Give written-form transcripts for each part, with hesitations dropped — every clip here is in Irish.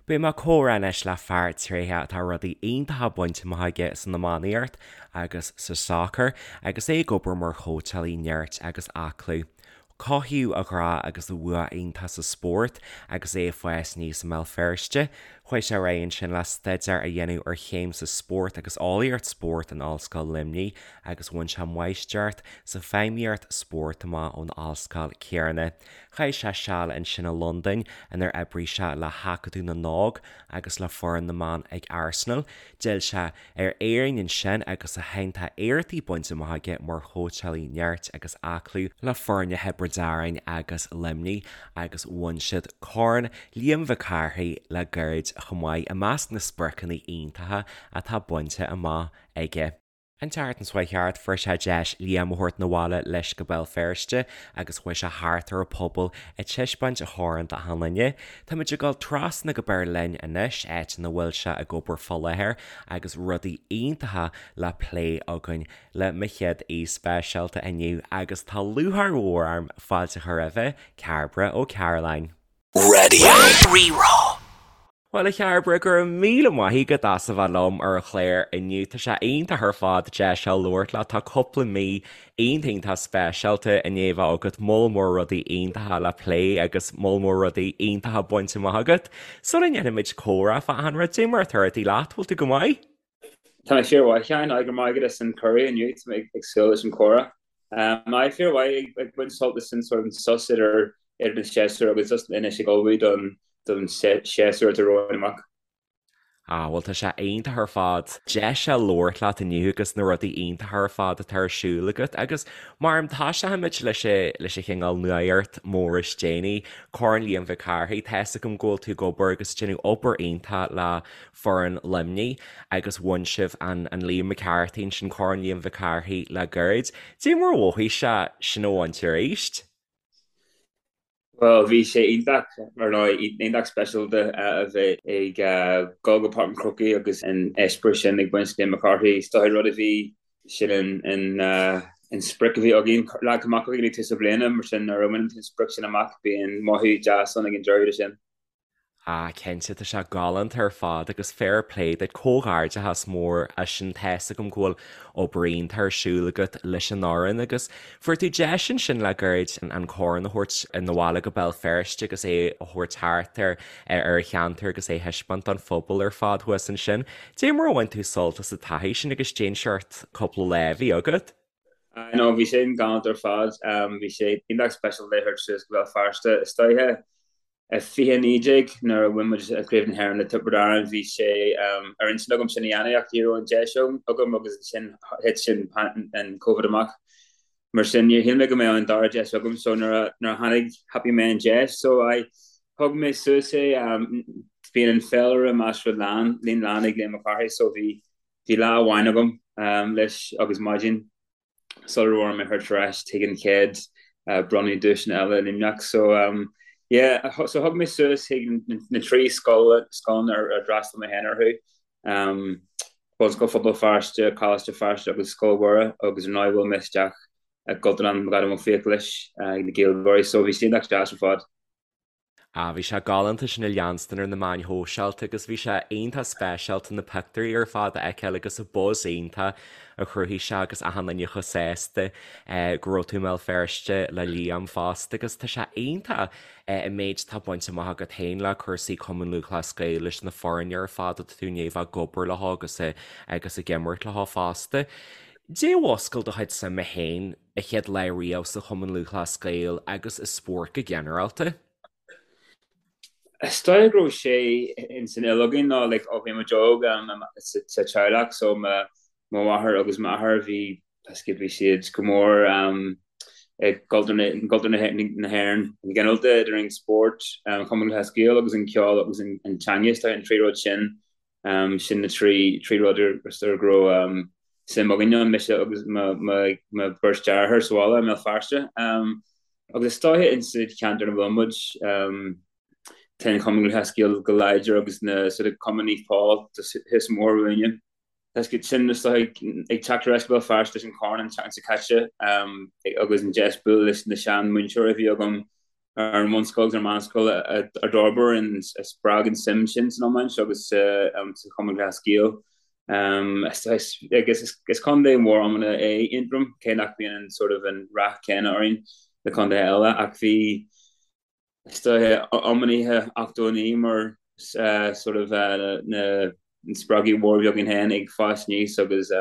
Beidh mé ag comhrá anois le fear tréitheach atá rudaí iontacha bainte amach aige san iománaíocht agus sa sacar agus é ag obair mar chóitseálaí nirt agus aclú. Cothaíodh a ghrá agus a bhua iontach sa spórt agus é ag fás aníos i mBéal Feirste. Chuaigh sé ar aghaidh ansin le staidéar a dhéanamh ar chéim sa spórt agus eolaíocht spóirt in Ollscoil Luimnigh agus bhain sé máistreacht sa feidhmíocht spóirt amach ón ollscoil céanna. Chaith sé seal ansin i Londain inar oibrigh sé le hAcadamh na nÓg agus le foireann na mban ag Arsenal. D'fhill sé ar Éirinn ansin agus ó shin tá éachtaí bainte amach aige mar chóitseálaí nirt agus aclú le foirne Thiobraid Árann agus Luimnigh agus bhain siad Corn Liam Mhic Cárthaigh le gairid chomh maith, i measc na spriocanna iontacha atá bainte amach aige. An tseachtain seo chuaigh thart, fuair sé deis Liam a thabhairt 'na bhaile leis go Béal Feirste agus chuaigh sé thart ar an phobal ag taispeáint a chorn d'achan duine. Táimid ag dul trasna go Beirlin anois, áit ina bhfuil sé ag obair fá láthair agus rudaí iontacha le plé againn le mo chéad aoi speisialta inniu agus tá lúcháir mhór orm fáilte a chur roimhe, Cairbre Ó Cairealláin. Raidió Rí-Rá. Bhuel, a Chairbre, go raibh míle maith agat as a bheith liom ar an chlár inniu. Tá sé iontach ar fad deis a labhairt leat. Tá cúpla mí iontach iontach speisialta i ndiaidh a bheith agat, moll mór rudaí iontacha le plé agus moll mór rudaí iontacha bainte amach agat. Sula ndéanfaimid comhrá fá achan rud, cad é mar atá rudaí leat, bhfuil tú go maith? Tá mé fíormhaith, a Sheáin, go raibh maith agat as an cuireadh inniu, tá mé ag súil leis an chomhrá. Aye, fíormhaith, ag baint sult as an sort of sos idir idir an séasúr agus just anois ag ullmhú don don séasúr atá romhainn amach. Ah, bhuel tá sé iontach ar fad deis a labhairt leat inniu agus na rudaí iontacha ar fad atá ar siúl agat agus mar toiseochaimid leis leis an chineál nuacht mór is déanaí, Corn Liam Mhic Cárthaigh, tá fhios agam go bhfuil tú ag obair agus ag déanamh obair iontach le foireann Luimnigh agus bhain sibh an an Liam McCarthy ansin, Corn Liam Mhic Cárthaigh le gairid. Cad é mar a mhothaigh sé sin a bhaint arís? Bhuel, bhí sé iontach, ar ndóigh, iontach speisialta a bheith ag dul go Páirc an Chrócaigh agus an eispéireas sin ag baint Liam McCarthy. Is dóigh rud a bhí sin an an sprioc a bhí againn, leagtha amach againn ag tús na bliana, mar sin nuair a bhaineann tú an sprioc sin amach, bíonn mothú deas ann ag an deireadh de sin. Ah cinnte, tá sé galánta ar fad agus fair play duit, comhghairdeachas mór as sin, tá fhios agam go bhfuil obair iontach ar siúl agat leis an fhoireann agus fuair tú deis ansin le gairid an corn a thabhairt 'na bhaile go Béal Feirste agus é a thabhairt thart ar ar an cheantar agus é a thaispeáint don phobal ar fad thuas ansin. Cad é mar a bhain tú sult as an taithí sin agus cén seort cúpla lá a bhí agat? I know, bhí sin galánta ar fad, bhí sé iontach speisialta é a thabhairt suas go Béal Feirste istoíche. I 2019 nuair a bhain muid Craobh na hÉireann le Tiobraid Árann bhí sé ar intinn agam sin a dhéanamh ach ní raibh an deis agam agus ansin thit sin an Covid amach. Mar sin níor shíl mé go mbeadh an dara deis agam so nuair a nuair a tháinig thapaigh mé an deis so I thug mé suas é bíonn an féilire measartha lán líon lán ag Liam Mac Cárthaigh so bhí bhí lá amháin agam leis agus maidin sula raibh orm é a thabhairt ar ais chuig an chéad bronnadh duaiseanna eile i Luimneach. So yeah, so thug mé suas chuig na trí scoil scoileanna ar d'fhreastail mé féin orthu, Bunscoil Phobal Feirste, Coláiste Feirste agus Scoil Mhuire agus ar ndóigh bhuail mé isteach i gCultúrlann McAdam Ó Fiaich leis ag na Gaeilgeoirí so bhí sé iontach deas ar fad. Ah, bhí sé galánta sin a leanstan ar na meáin shóisialta agus bhí sé iontach speisialta na pictiúirí ar fad a fheiceáil agus an buzz iontach a chruthaigh sé agus achan duine chomh sásta go raibh tú i mBéal Feirste le Liam fosta agus tá sé iontach an méid atá bainte amach agat féin le cúrsaí Cumann Lúthchleas Gael leis na foirne ar fad atá tú i ndiaidh bheith ag obair leo agus agus ag imirt leo fosta. Cad é a mhúscail do chuid suime féin an chéad lá riamh sa Chumann Lúthchleas Gael agus i spórt go ginearálta? Is dóigh go raibh sé ins an fhuil againn nó like ó bhí muid óg sa teaghlach so mo mháthair agus m'athair bhí bhí siad go mór i gcultúr na hÉireann go ginearálta idir an spórt, an Cumann Lúthchleas Gael agus an ceol agus an teanga is dóigh an trí rud sin Sin na trí rud ar go raibh suim againn ann, mise agus mo bheirt deartháir sa bhaile i mBéal Feirste. Agus is dóiche in sa cheantar ina bhfuil muid, tá an Cumann Lúthchleas Gael go láidir agus na sort of Cumann Naomh Pól thuas an bóthar uainne. Tá sin is dóiche ag teacht ar ais go Béal Feirste leis an chorn an tseachtain seo caite agus an deis bualadh leis na sean múinteoirí a bhí agam. Ar an bhunscoil agus ar an meánscoil a d'fhorbair an, a spreag an suim sin san iomáint agus sa Chumann Lúthchleas Gael. Agus is contae mór iomána é Aontroim, cé nach mbíonn an sort of an rath céanna orainn le contaetha eile, ach bhí is dóiche iománaithe 89 mar sort of na spreagaí mhór a bhí againn féin ag fás aníos agus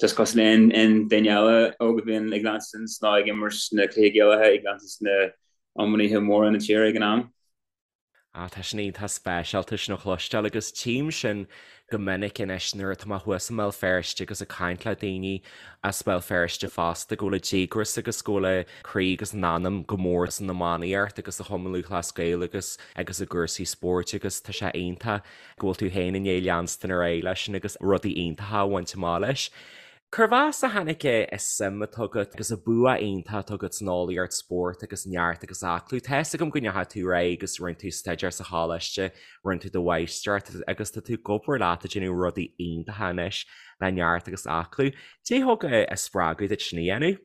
Just cosúil le aon duine eile óg a bhíonn ag leanstan nó ag imirt na cluichí Gaelacha, ag leanstan na iománaithe móra na tíre ag an am. Ah, tá sin iontach speisialta sin a chloisteáil agus tchím sin go minic anois nuair atá mé thuas i mBéal Feirste agus ag caint le daoine as Béal Feirste fosta go bhfuil a díograis agus go bhfuil a croí agus a n-anam go mór san iománaíocht agus sa Chumann Lúthchleas Gael agus agus i gcúrsaí spóirt agus tá sé iontach go bhfuil tú féin i ndiaidh leanstan ar aghaidh leis sin agus rudaí iontacha a bhaint amach leis. Cérbh as a tháinig an suim atá agat agus an bua iontach atá agat san eolaíocht spóirt agus neart agus aclú? Tá fhios agam go ndeachaigh tú ar aghaidh agus rinne tú staidéar sa choláiste, rinne tú do mháistreacht agus tá tú ag obair leat ag déanamh rudaí iontacha anois le neart agus aclú. Cad é thug an spreagadh duit sin a dhéanamh?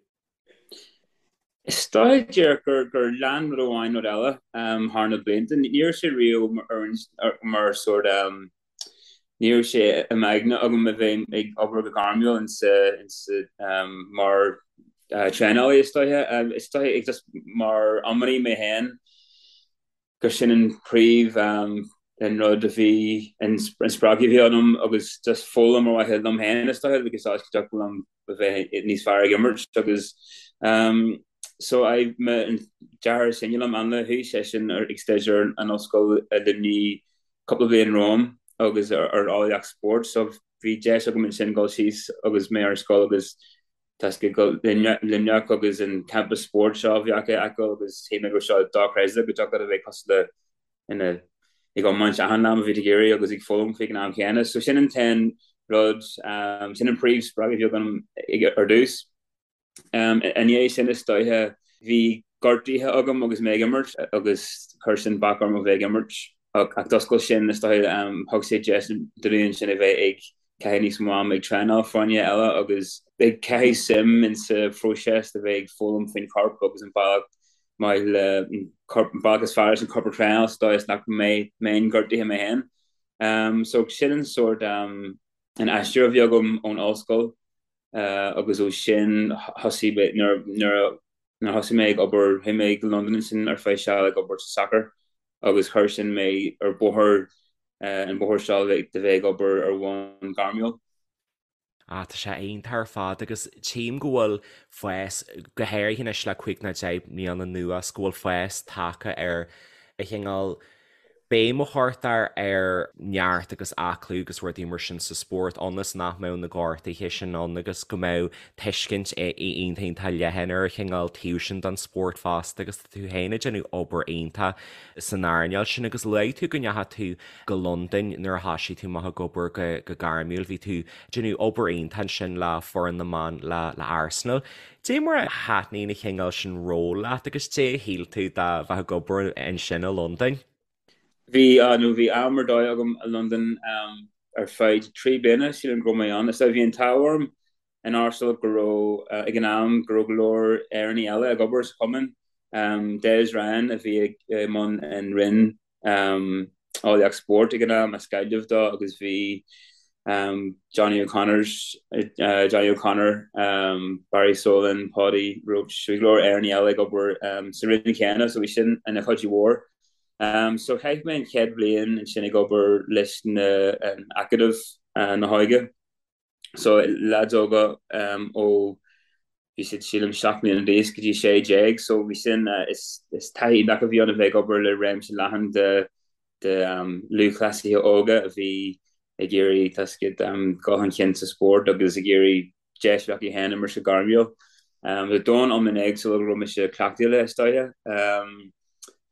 Is dóiche díreach gur gur lean rud amháin rud eile thar na blianta. Ní raibh sé riamh mar sórt ní raibh sé i m'aigne agam a bheith ag obair go gairmiúil insa insa mar traenálaí is dóiche. Is dóiche just mar iománaí mé féin. gur sin an príomh an rud a bhí an spreagadh a bhí ionam agus just foghlaim ar mhaithe liom féin is dóiche agus áit go dtiocfadh liom a bheith níos fearr ag imirt agus so I mo an deartháir is sine liom Ainle chuaigh seisean ag staidéar in ollscoil i Luimnigh cúpla bliain romham agus ar eolaíocht spóirt so bhí deis agam ansin dul síos agus mé ar scoil agus Tá sé go Luimneach agus an campus spóirt seo a bhí acu a fheiceáil agus shíl mé go raibh seo dochreidte go dtiocfadh leat a bheith cosúil le ina ag iomáint achan lá má bhí tú ag iarraidh agus ag foghlaim faoi ag an am chéanna. So sin an t-aon rud, sin an príomh spreagadh a bhí agam ar dtús. I ndiaidh sin is dóiche bhí gortuithe agam agus mé ag imirt agus chuir sin bac orm a bheith ag imirt ach d'oscail sin is dóiche thug sé deis dúinn ansin a bheith ag caitheamh níos mó ama ag traenáil foirne eile agus ag caitheamh suim in sa phróiseas de bheith ag foghlaim faoin chorp agus an bealach maith le an corp an bealach is fearr leis an corp a thraenáil sa dóigh is nach mbeidh mbeinn gortaithe mé féin. Um, so sin an sórt um, an aistear a bhí agam ón ollscoil uh, agus ó sin thosaigh mé nuair nuair nuair thosaigh mé ag obair chuaigh mé go Londain ansin ar feadh seal ag obair sa sacar agus chuir sin mé ar bóthar an bóthar seo de bheith ag obair ar bhonn gairmiúil. Ah, tá sé iontach ar fad agus tchím go bhfuil fás, go háirithe anois le 5 nó 10 mbliana anuas, go bhfuil fás tagtha ar an chineál béim a chuirtear ar neart agus aclú agus rudaí mar sin sa spórt ionas nach mbeadh na gortuithe sin ann agus go mbeadh tuiscint iontach iontach leathan ar an chineál taobh sin den spórt fosta agus tá tú féin ag déanamh obair iontach san earnáil sin agus luaigh tú go ndeachaigh tú go Londain nuair a thoisigh tú amach ag obair go gairmiúil, bhí tú ag déanamh obair iontach ansin le foireann na mban le Arsenal. Dé mar a thaitníonn an chineál sin ról leat agus dé a shíl tú de bheith ag obair ansin i Londain? Bhí, nó bhí am ar dóigh agam i Londain ar feadh 3 bliana, sílim go raibh mé ann. Is bhí an t-ádh orm in Arsenal go raibh, ag an am, go raibh go leor Éireannaigh eile ag obair sa chumann. Des Ryan a bhí i mbun an roinn eolaíocht spóirt ag an am, as Gaillimh dó, agus bhí Johnny O'Connors, Johnny O'Connor, Barry Solan, Paudie Roche, bhí go leor Éireannaigh eile ag obair sa roinn chéanna, so bhí sin ina chuidiú mhór. So chaith mé an chéad bhliain ansin ag obair leis na an Acadamh na hÓige. So leaids óga ó bhí siad sílim 7 mbliana d'aois go dtí 16 so bhí sin is is taithí iontach a bhí ann a bheith ag obair le réimse leathan de de lúthchleasaithe óga a bhí ag iarraidh tá a fhios agat dul chun cinn sa spórt agus ag iarraidh deis a bheith acu féin imirt go gairmiúil. Bhí domhan iomlán éagsúil go raibh mise cleachtaithe le is dóiche.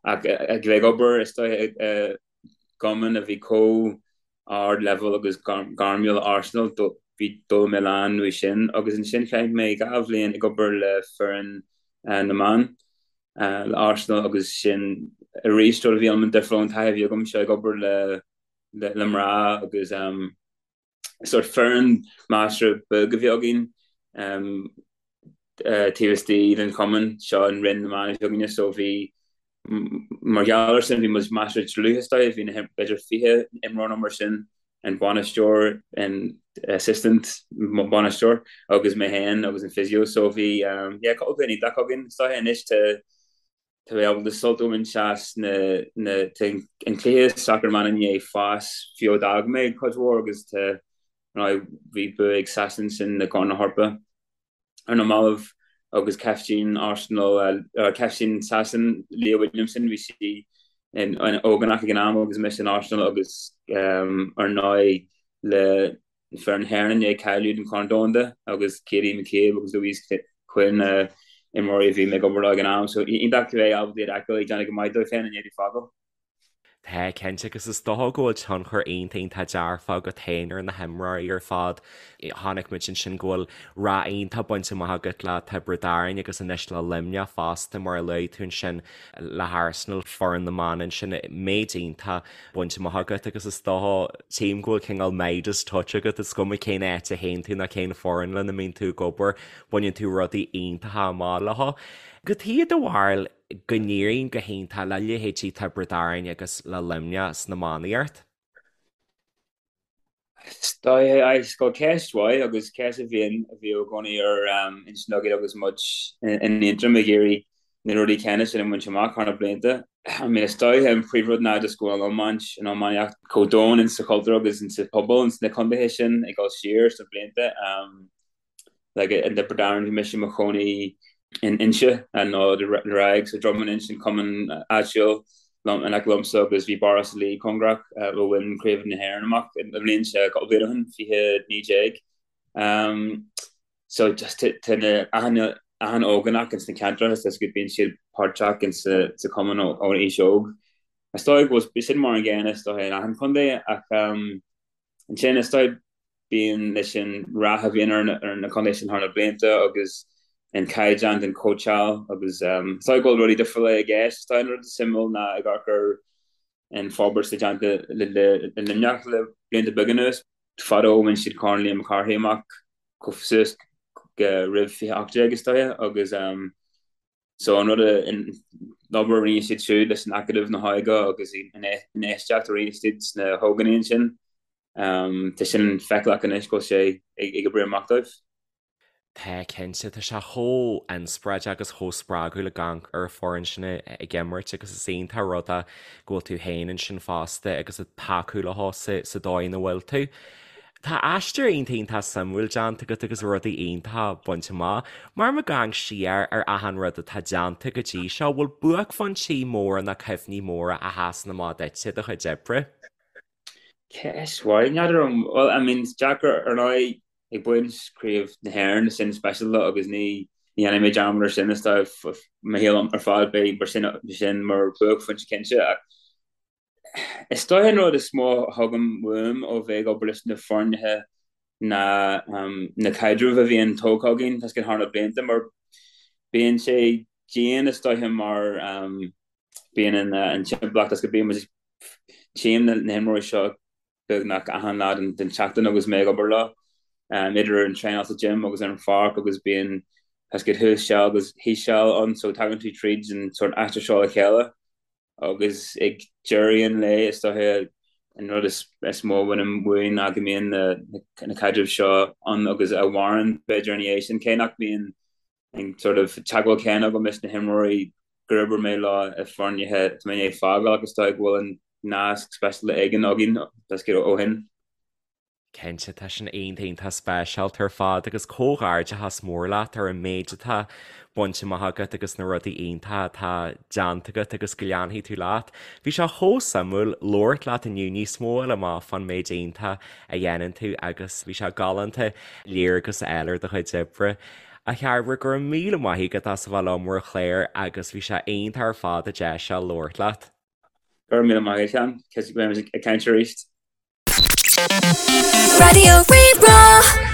Ach ag bheith ag obair is dóiche i gcumann a bhí chomh ard leibhéal agus gairmiúil le Arsenal, bhí d'fhoghlaim mé a lán uaidh sin agus ansin chaith mé 2 bhliain ag obair le foireann na mban le Arsenal agus sin arís rud a bhí iomlán difriúil ón taithí a bhí agamsa ag obair le le mná agus sórt foireann measartha beag a bhí againn. Taobh istigh den chumann seo an Roinn na mBan a bhí againne so bhí mar gheall ar sin bhí muid measartha dlúth is dóigh, bhí na b'fhéidir 20 imreoir nó mar sin, an bainisteoir, an assistant bainisteoir agus mé féin agus an physio so bhí yeah cúpla bliain iontach againn is dóigh anois tá tá mé ábalta sult a bhaint as na na tá an cluiche sacar na mban i ndiaidh fás fiú ó d'fhág mé cuid mhór agus tá bhí bua ag Sasain sin i gCorn na hEorpa. ar na mallaibh agus caiftín Arsenal, caiftín Sasain, Leah Williamson, bhí sí in ógánach ag an am agus mise in Arsenal agus ar ndóigh le foireann na hÉireann i ndiaidh cáiliú don Chorn Domhanda agus Katie McCabe agus Louise Quinn na imreoirí a bhí mé ag obair leo ag an am. So iontach a bheith ábalta iad a fheiceáil ag déanamh go maith dóibh féin i ndiaidh fágáil. Tá, cinnte, agus is dócha go bhfuil tionchar iontach iontach dearfach agat féin ar na himreoirí ar fad. Chonaic muid ansin go bhfuil rath iontach bainte amach agat le Tiobraid Árann agus anois le Luimneach fosta, mar a luaigh tú ansin le hArsenal, foireann na mban ansin, méid iontach bainte amach agat agus is dócha, tchím go bhfuil cineál Midas touch agat, is cuma cén áit a théann tú ná cén foireann lena mbíonn tú ag obair, baineann tú rudaí iontacha amach leo. Cad é do bharúil go n-éiríonn go hiontach le leithéidí Tiobraid Árann agus le Luimneach san iománaíocht? Is dóigh go ceist mhaith agus ceist a bhíonn a bhí i gcónaí ar intinn againn agus muid in Aontroim ag iarraidh na rudaí céanna sin a bhaint amach thar na blianta. I mean is dóigh an príomhrud ná just go bhfuil an iomáint, an iománaíocht chomh domhain in sa chultúr agus in sa pobal ins na contaetha sin ag dul siar sna blianta. Like in Tiobraid Árann bhí mise i mo chónaí in Inse nó ar aghaidh so Droim an Inse an cumann áitiúil liom in aice liomsa agus bhí Barra Átha Cliath cóngarach a bhain Craobh na hÉireann amach i mbliain se cúpla bliain ó shin, 2019. Um, so just tá na achan achan ógánach ins na ceantracha is go bíonn siad páirteach in sa sa cumann ó aois óg. Is dóigh go bhfuil sin mar an gcéanna is dóigh in achan chontae ach um, Ansin is dóigh bíonn leis an rath a bhíonn ar na contaetha sin thar na blianta agus an caighdeán den chóitseáil agus is dóigh go bhfuil rudaí difriúla i gceist. Is dóigh an rud is suimiúil ná ag amharc ar an forbairt atá déanta le Luimneach le blianta beaga anuas. Fadó bhain siad Corn Liam Mac Cárthaigh amach chomh suas go roimh 2018 is dóigh agus So an rud a, an obair a rinne siad siúd leis an Acadamh na hÓige agus an infheistíocht a rinne siad sna hógánaigh ansin, tá sin feiceálach anois go bhfuil sé ag oibriú amach dóibh. Tá, cinnte. Tá sé chomh inspioráideach agus chomh spreagúil ag amharc ar an foireann sin ag imirt agus is iontach an rud é go bhfuil tú féin ansin fosta agus ag tacú leo sa dóigh ina bhfuil tú. Tá aistear iontach iontach suimiúil déanta agat agus rudaí iontacha bainte amach. Mar ag amharc siar ar achan rud atá déanta go dtí seo, bhfuil buaicphointí móra nó cuimhní móra a sheasann amach duit i do chuid oibre? Ceist mhaith, n'fheadar an bhfuil, I mean is deacair ar ndóigh ag baint craobh na hÉireann sin speisialta agus ní dhéanfaidh mé dearmad ar sin is dóigh mo shaol ar fad beidh mar sin sin mar buaicphointe cinnte ach Is dóigh an rud is mó a thugaim uaim ó bheith ag obair leis na foirne ná na caidrimh a bhíonn tógtha againn tá a fhios agat thar na blianta mar bíonn sé dian is dóiche mar bíonn an timpeallacht is go bíonn muid tchím na himreoirí seo beagnach achan lá den tseachtain agus mé ag obair leo, idir an traenáil sa gym agus ar an pháirc agus bíonn tá a fhios agat thuas seal agus thíos seal ann so tagann tú tríd an sórt aistear seo le chéile. Agus ag deireadh an lae, is dóiche, an rud is mó a bhainim uaidh ná go mbíonn na caidrimh seo ann agus a mhaireann, b'fhéidir, ina dhiaidh sin, cé nach mbíonn an sort of teagmháil céanna agam leis na himreoirí gur oibir mé leo i foirne atá mé i ndiaidh fágáil ach is dóigh go bhfuil an nasc speisialta éigin againn, tá a fhios agat, ó shin. Cinnte, tá sin iontach iontach speisialta ar fad agus comhghairdeachas mór leat ar an méid atá bainte amach agat agus na rudaí iontacha atá déanta agat agus go leanfaidh tú leat. Bhí sé chomh suimiúil labhairt leat inniu níos mó a fháil amach fán méid iontach a dhéanann tú agus bhí sé galánta léargas a fháil ar do chuid oibre. A Chairbre, go raibh míle maith agat as a bheith liom ar an chlár agus bhí sé iontach ar fad an deis seo labhairt leat. Go raibh míle maith agat, Seán. Cinnte go mbeimid ag caint arís. Raidió Rí-Rá.